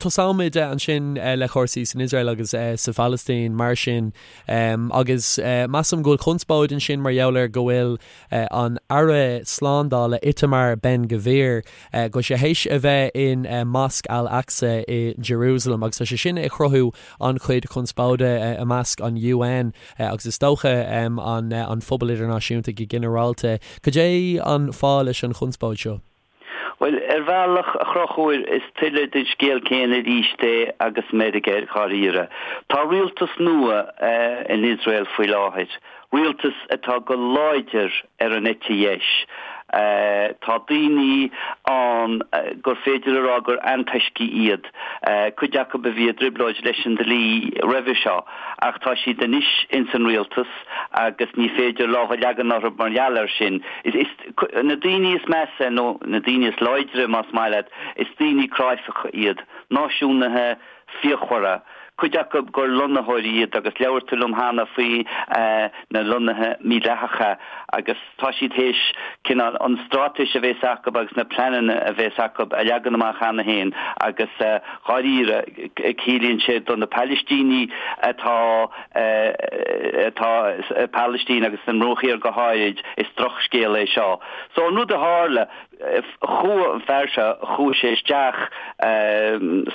Tosóimid ansin le cúrsaí san Iosrael agus sa Phalaistín mar sin agus measaim go bhfuil conspóid ansin mar gheall ar go bhfuil an Aire Slándála Itamar Ben Gvir, go bhfuil sé théis a bheith in Mosque Al-Aqsa i Jerusalem agus tá sé sin ag cruthú an-chuid conspóide i measc an UN agus is dócha an phobal idirnáisiúnta go ginearálta. Cad é an fáth leis an chonspóid seo? Bhuel, ar bhealach, a Chonchúir, is tuilleadh den scéal céanna arís é agus Meiriceá, dháiríre. Tá rialtas nua in Iosrael faoi láthair, rialtas atá go láidir ar an eite dheis. Tá daoine ann gur féidir a rá gur antoiscigh iad, cuid acu a bhí i dtrioblóid leis an dlí roimhe seo, ach tá siad anois ins an rialtas agus ní féidir lámh a leagan orthu mar gheall air sin. Is. Na daoine is measa, nó na daoine is láidre más maith leat, is daoine cráifeacha iad, náisiúnaithe fíochmhara, cuid acu gur lonnaitheoirí iad agus labhair tú liom cheana faoi na lonnaithe mídhleathacha agus tá siad théis cineál an straitéis a bhéas acu agus na pleananna a bhéas acu a leagan amach cheana féin agus dháiríre ciallaíonn sé do na Palaistínigh atá atá sa Phalaistín agus sa mBruach Thiar go háirid, is drochscéal é seo. So an rud a tharla, chuaigh an fear seo, chuaigh sé isteach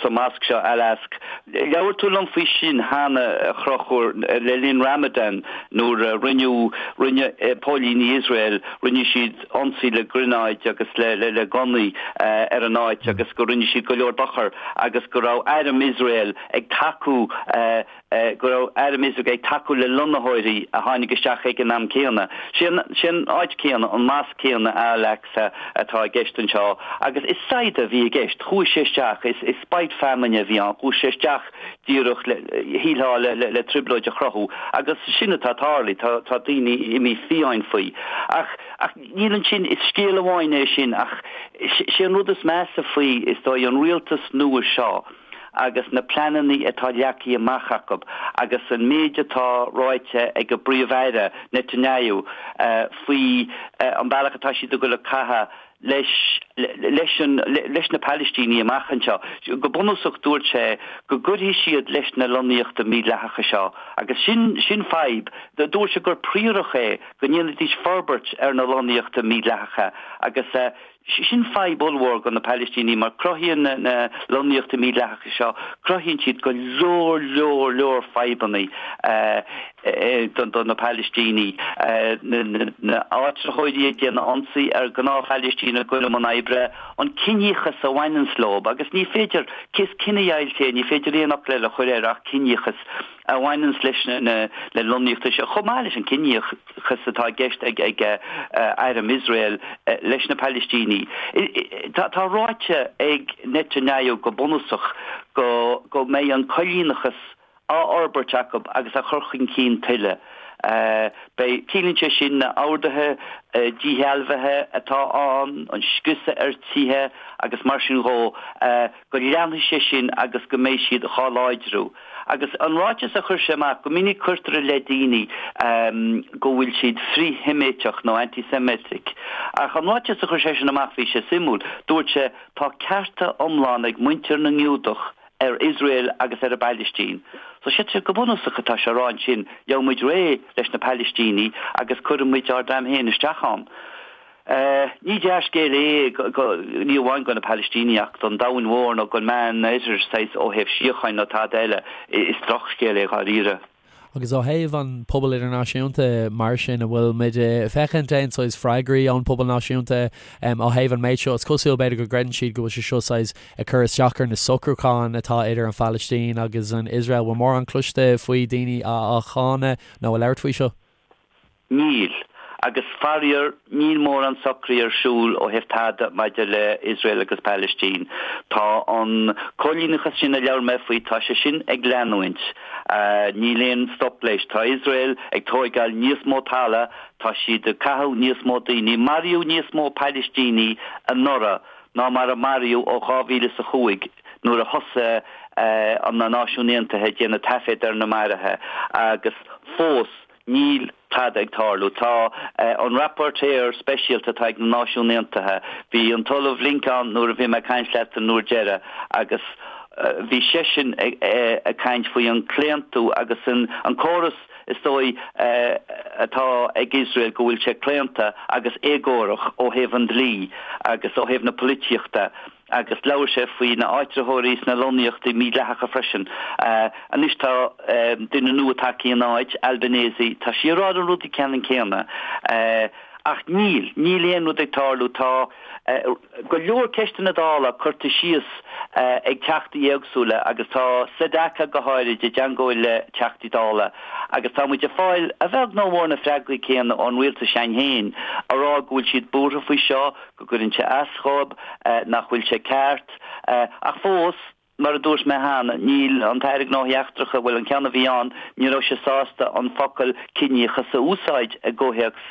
sa mosque seo, Al-Aqsa. Labhair tú liom faoi sin cheana, a Chonchúir, le linn Ramadan nuair a rinneadh, rinne póilíní Iosrael, rinne siad ionsaí le gránáid agus le le gunnaí ar an áit agus go rinne siad go leor dochar agus go raibh airm Iosrael ag tacú go raibh airm Iosrael ag tacú le lonnaitheoirí a tháinig isteach ag an am céanna. Sé an áit céanna, an mosque céanna, Al-Aqsa, atá i gceist anseo agus is saighdeadh a bhí i gceist. Chuaigh sé isteach, is spite feamainne a bhí ann, chuaigh sé isteach díreach le, shílfeá, le trioblóid a chruthú agus sin atá tarlaithe, tá daoine imithe fiáin faoi. Ach, ach níl ansin, is scéal amháin é sin ach sé an rud is measa faoi, is dóigh, an rialtas nua seo, agus na pleananna atá leagtha amach acu agus an méid atá ráite ag an bPríomh-Aire, Netanyahu, faoi an bealach atá siad ag dul ag caitheamh leis leis an leis na Palaistínigh amach anseo. Go bunúsach dúirt sé go gcuirfidh siad leis na lonnaíochta mídhleathacha seo agus sin sin fadhb. Dúirt sé gur príorach é go ndéanfaidís forbairt ar na lonnaíochta mídhleathacha agus Sin fadhb ollmhór do na Palaistínigh mar cruthaíonn na lonnaíochtaí mídhleathacha seo, cruthaíonn siad go leor, leor, leor fadhbanna do na Palaistínigh. Na áitritheoirí ag déanamh ionsaí ar ghnáth-Phalaistínigh ag dul i mbun oibre, an ciníochas a bhaineanns leo agus ní féidir, is cinedheighilt é, ní féidir aon fhocal eile a chur air ach ciníochas a bhaineanns leis na lonnaíochtaí seo, chomh maith leis an ciníochas atá i gceist ag airm Iosrael leis na Palaistínigh. Tá ráite ag Netanyahu go bunúsach go mbeidh an coilíneachas á fhorbairt acu agus á chur chun cinn tuilleadh. Beidh, ciallaíonn sé sin na orduithe díshealbhaithe atá ann, an scriosadh ar tithe agus mar sin dhó, go leanfaidh sé sin agus go mbeidh siad dhá láidriú. Agus an ráiteas a chuir sé amach, go minic cuirtear i leith daoine go bhfuil siad frith-Sheiméiteach nó anti-Semitic. Ach an ráiteas a chuir seisean amach, bhí sé suimiúil. Dúirt sé, tá cearta iomlán ag muintir na nGiúdach ar Iosrael agus ar an bPailistín. So sé go bunúsach atá sé a rá ansin, gheobhaidh muid réidh leis na Palaistínigh agus cuirfidh muid ár dream féin isteach ann. Ní dea-scéal é, ní amháin do na Palaistínigh ach don domhan mhór nó don Meánoirthear saghas ó thaobh síocháin nó tada eile. Is drochscéal é dháiríre. Agus ó thaobh an pobal idirnáisiúnta mar sin, an bhfuil muid ag féachaint aon saghas freagraí ón pobal náisiúnta ó thaobh an méid seo? Is cosúil b'fhéidir go gcreideann siad go bhfuil sé seo saghas ag cur isteach ar na socrúcháin atá idir an Phalaistín agus an Iosrael. Bhfuil mórán cloiste faoi daoine á cháineadh nó ag labhairt faoi seo? Níl. Agus faraor, níl mórán socraithe ar siúl ó thaobh tada maidir le Iosrael agus Palaistín. Tá an coilíneachas sin a labhair mé faoi, tá sé sin ag leanúint. Níl aon stop leis. Tá Iosrael ag tóigeáil níos mó talamh, tá siad ag caitheamh níos mó daoine. Maraíodh níos mó Palaistínigh anuraidh ná mar a maraíodh ó 2005 nuair a thosaigh na Náisiúin Aontaithe ag déanamh taiféad ar na maruithe agus fós Níl tada ag tarlú. Tá an rapporteur speisialta atá ag na Náisiúin Aontaithe, bhí an tOllamh Link ann nuair a bhí mé ag caint leat an uair deireadh agus. Bhí seisean ag caint faoi an claontú agus an córas is dóigh atá ag Iosrael go bhfuil sé claonta agus éagórach ó thaobh an dlí agus ó thaobh na polaitíochta agus labhair sé faoi na áitritheoirí sna lonnaíochtaí mídhleathacha freisin. Anois tá duine nua tagtha ina áit, Albanese, tá sí ag rá na rudaí ceannann céanna. Ach níl, níl aon rud ag tarlú. Tá go leor ceisteanna Dála curtha síos ag teachtaí éagsúla agus tá Sedaka go háirid i dteangmháil le teachtaí Dála agus tá muid ag fáil, a bheag nó a mhór, na freagraí céanna ón rialtas s'againn féin a rá go bhfuil siad buartha faoi seo, go gcuireann sé as dhóibh, nach bhfuil sé ceart. Ach fós. Mar a dúirt mé cheana, níl an tAire Gnóthaí Eachtracha, bhuel, an ceann a bhí ann, ní raibh sé sásta an focal ciníochas a úsáid i gcomhthéacs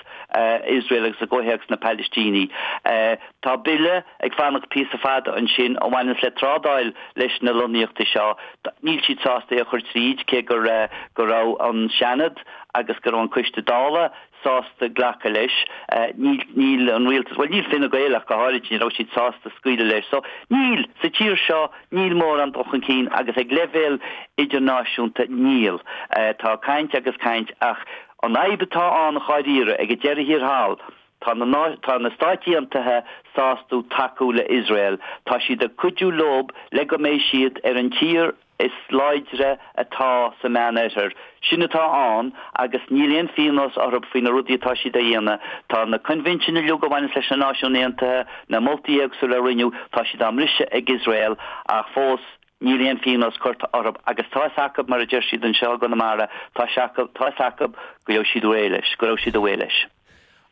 Iosrael agus i gcomhthéacs na Palaistínigh. Tá bille ag fanacht píosa fada ansin a bhaineanns le trádáil leis na lonnaíochtaí seo. Níl siad sásta é a chur tríd, cé go go raibh an Seanad agus go raibh an Coiste Dála sásta glacadh leis. Níl, níl an rialtas, bhuel níl Fine Gael ach go háirid, ní raibh siad sásta scaoileadh leis. So, níl, sa tír seo, níl mórán dul chun cinn agus ag leibhéal idirnáisiúnta, níl. Tá caint agus caint ach an fhadhb atá ann dháiríre ag an deireadh thiar thall, tá na, tá na Stáit Aontaithe sásta tacú le Iosrael. Tá siad ag cuidiú leob le go mbeidh siad ar an tír is láidre atá sa Meánoirthear. Sin atá ann agus níl aon phíonós orthu faoi na rudaí atá siad a dhéanamh. Tá na coinbhinsin uilig a bhaineas leis na Náisiúin Aontaithe, na moltaí éagsúla a rinneadh, tá siad á mbriseadh ag Iosrael ach fós níl aon phíonós curtha orthu agus tá fhios acu, mar a deir siad anseo i gConamara, tá sé acu, tá fhios acu go raibh siad réidh leis, go raibh siad away leis.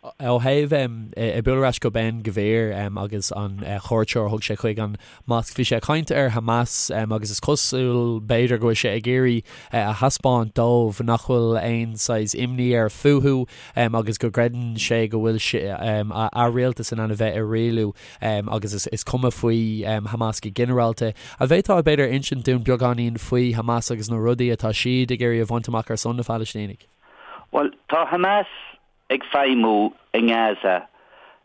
Ó thaobh ag bualadh ar ais go Ben Gvir agus an chuairt seo a thug sé chuig an mosc, bhí sé ag caint ar Hamas agus is cosúil b'fhéidir go bhfuil sé ag iarraidh a thaispeáint dóibh nach bhfuil aon saghas imní air fúthu agus go gcreideann sé go bhfuil a rialtas in ann a bheith ag rialú agus is cuma faoi Hamas go ginearálta. An bhféadfá b'fhéidir insint dúinn beagáinín faoi Hamas agus na rudaí atá siad ag iarraidh a bhaint amach ar son na Phalaistínigh? Bhuel, tá Hamas ag feidhmiú i nGaza.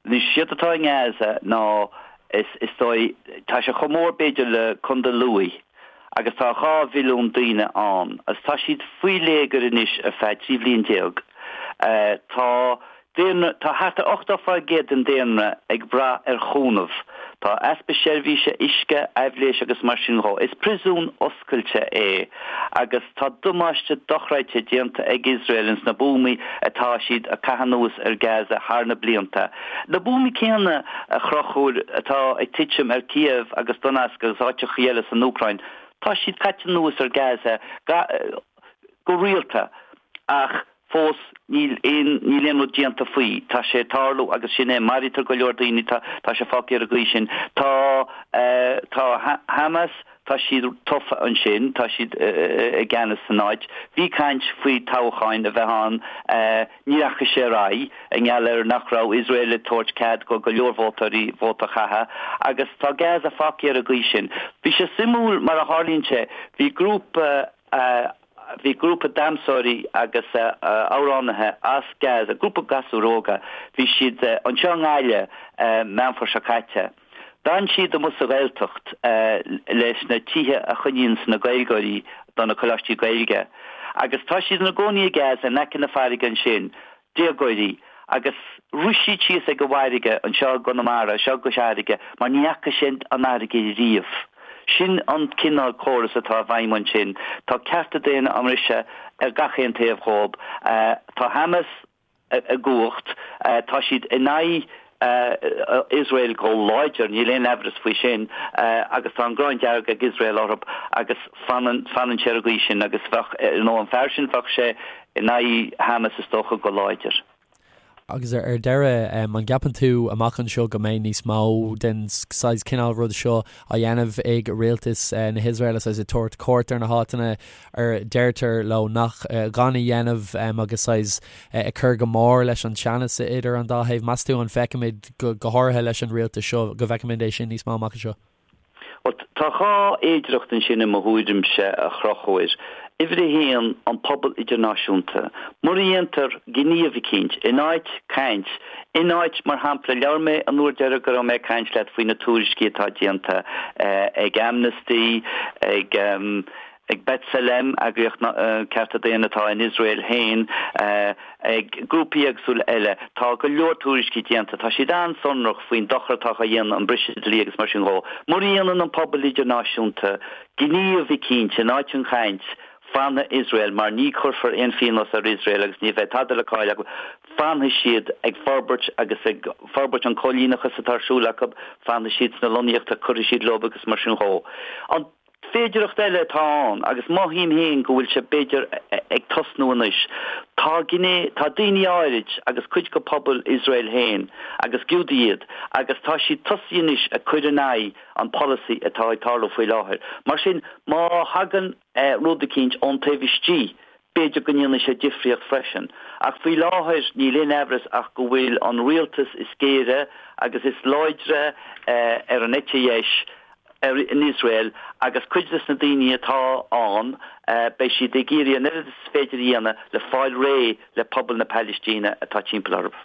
Anois, séard atá i nGaza ná, is, is dóigh, tá sé chomh mór b'fhéidir le Contae Lú agus tá 2 mhilliún daoine ann agus tá siad faoi léigear anois ar feadh 13 bhliain. Tá daonra, tá thart ar 80% den daonra ag brath ar chúnamh. Tá easpa seirbhíse uisce, aibhléis agus mar sin dhó. Is príosún oscailte é agus tá damáiste dochreidte déanta ag Iosrael ins na buamaí atá siad a caitheamh anuas ar Gaza thar na blianta. Na buamaí céanna, a Chonchúir, atá ag titim ar Kiev agus Donetsk agus áiteachaí eile san Úcráin, tá siad caite anuas ar Gaza go rialta ach Fós, níl aon, níl aon rud déanta faoi. Tá sé ag tarlú agus sin é. Maraítear go leor daoine, tá, tá sé fágtha ar an gcaoi sin. Tá, eh, tá Hamas, tá siad tofa ansin, tá siad i gceannas san áit. Bhí caint faoi toghcháin a bheith ann, eh, ní rachaidh sé ar aghaidh i ngeall ar nach raibh Iosrael ag tabhairt cead go go leor vótóirí vóta a chaitheamh agus tá Gaza fágtha ar an gcaoi sin. Bhí sé suimiúil mar a tharlaíonn sé, bhí grúpa, eh, Bhí grúpa damhsóirí agus amhránaithe as Gaza, grúpa gasúir óga, bhí siad anseo i nGaillimh Meán Fómhair seo caite. D'fhan siad amuigh sa Ghaeltacht leis na tithe a choinníonns na Gaeilgeoirí do na coláistí Gaeilge. Agus tá siad ina gcónaí i Gaza in aice na farraige ansin. déagóirí agus rith siad síos ag an bhfarraige anseo i gConamara, anseo i gCois Fharraige, mar ní fhaca siad an fharraige riamh. Sin an cineál córas atá i bhfeidhm ansin. Tá cearta daonna á mbriseadh ar gach aon taobh dhób. Tá Hamas i gcumhacht, tá siad in aghaidh Iosrael go láidir, níl aon aimhreas faoi sin, agus tá an ghráin dearg ag Iosrael orthu agus fanann, fanann sé ar an gcaoi sin agus bheadh, you know, an fear sin, bheadh sé in aghaidh Hamas is dócha go láidir. Agus ar deireadh, an gceapann tú amach anseo go mbeidh níos mó den saghas cineál rud seo á dhéanamh ag rialtas na hIosraeile, saghas ag tabhairt cuairt ar na háiteanna ar deirtear leo nach gan a dhéanamh agus saghas ag cur go mór leis an teannas idir an dá thaobh. Meas tú an bhfeicfimid, go háirithe leis an rialtas seo, go bhfeicfimid é sin níos mó amach anseo? Bhuel, tá dhá fhéidearthacht ansin i mo thuairimse, a Chonchúir. Uimhir a haon, an pobal idirnáisiúnta. Mura ndéantar gníomh eicínt, in áit caint, in áit, mar shampla, labhair mé an uair deiridh go raibh mé ag caint leat faoi na tuairiscí atá déanta ag Amnesty, ag ag B'Tselem, eagraíocht cearta daonna atá in Iosrael féin, ag grúpaí éagsúla eile. Tá go leor tuairiscí déanta, tá siad an-sonrach faoin dochar atá á dhéanamh, an briseadh dlí agus mar sin dhó. Mura ndéanann an pobal idirnáisiúnta gníomh eicínt in áit an chaint, fanfaidh Iosrael, mar ní chuirfear aon phíonós ar Iosrael agus ní bheidh tada le cailleadh acu, fanfaidh siad ag forbairt agus ag forbairt an coilíneachas atá ar siúl acu, fanfaidh siad sna lonnaíochtaí, cuirfidh siad leo agus mar sin dhó. An féidearthacht eile atá ann, agus mothaím féin go bhfuil sé b'fhéidir ag tosnú anois, tá gné, tá daoine áirid agus cuid de phobal Iosrael féin, agus Giúdaigh iad, agus tá siad tosaithe anois ag cur in aghaidh an polasaí atá ag tarlú faoi láthair. Mar sin, má thagann rud eicínt ón taobh istigh, b'fhéidir go ndéanfaidh sé difríocht freisin. Ach faoi láthair, níl aon aimhreas ach go bhfuil an rialtas is géire agus is láidre ar an eite dheis in Iosrael agus cuid des na daoine atá ann, beidh siad ag iarraidh an oiread is féidir a dhéanamh le fáil réidh le pobal na Palaistíne atá timpeall orthu.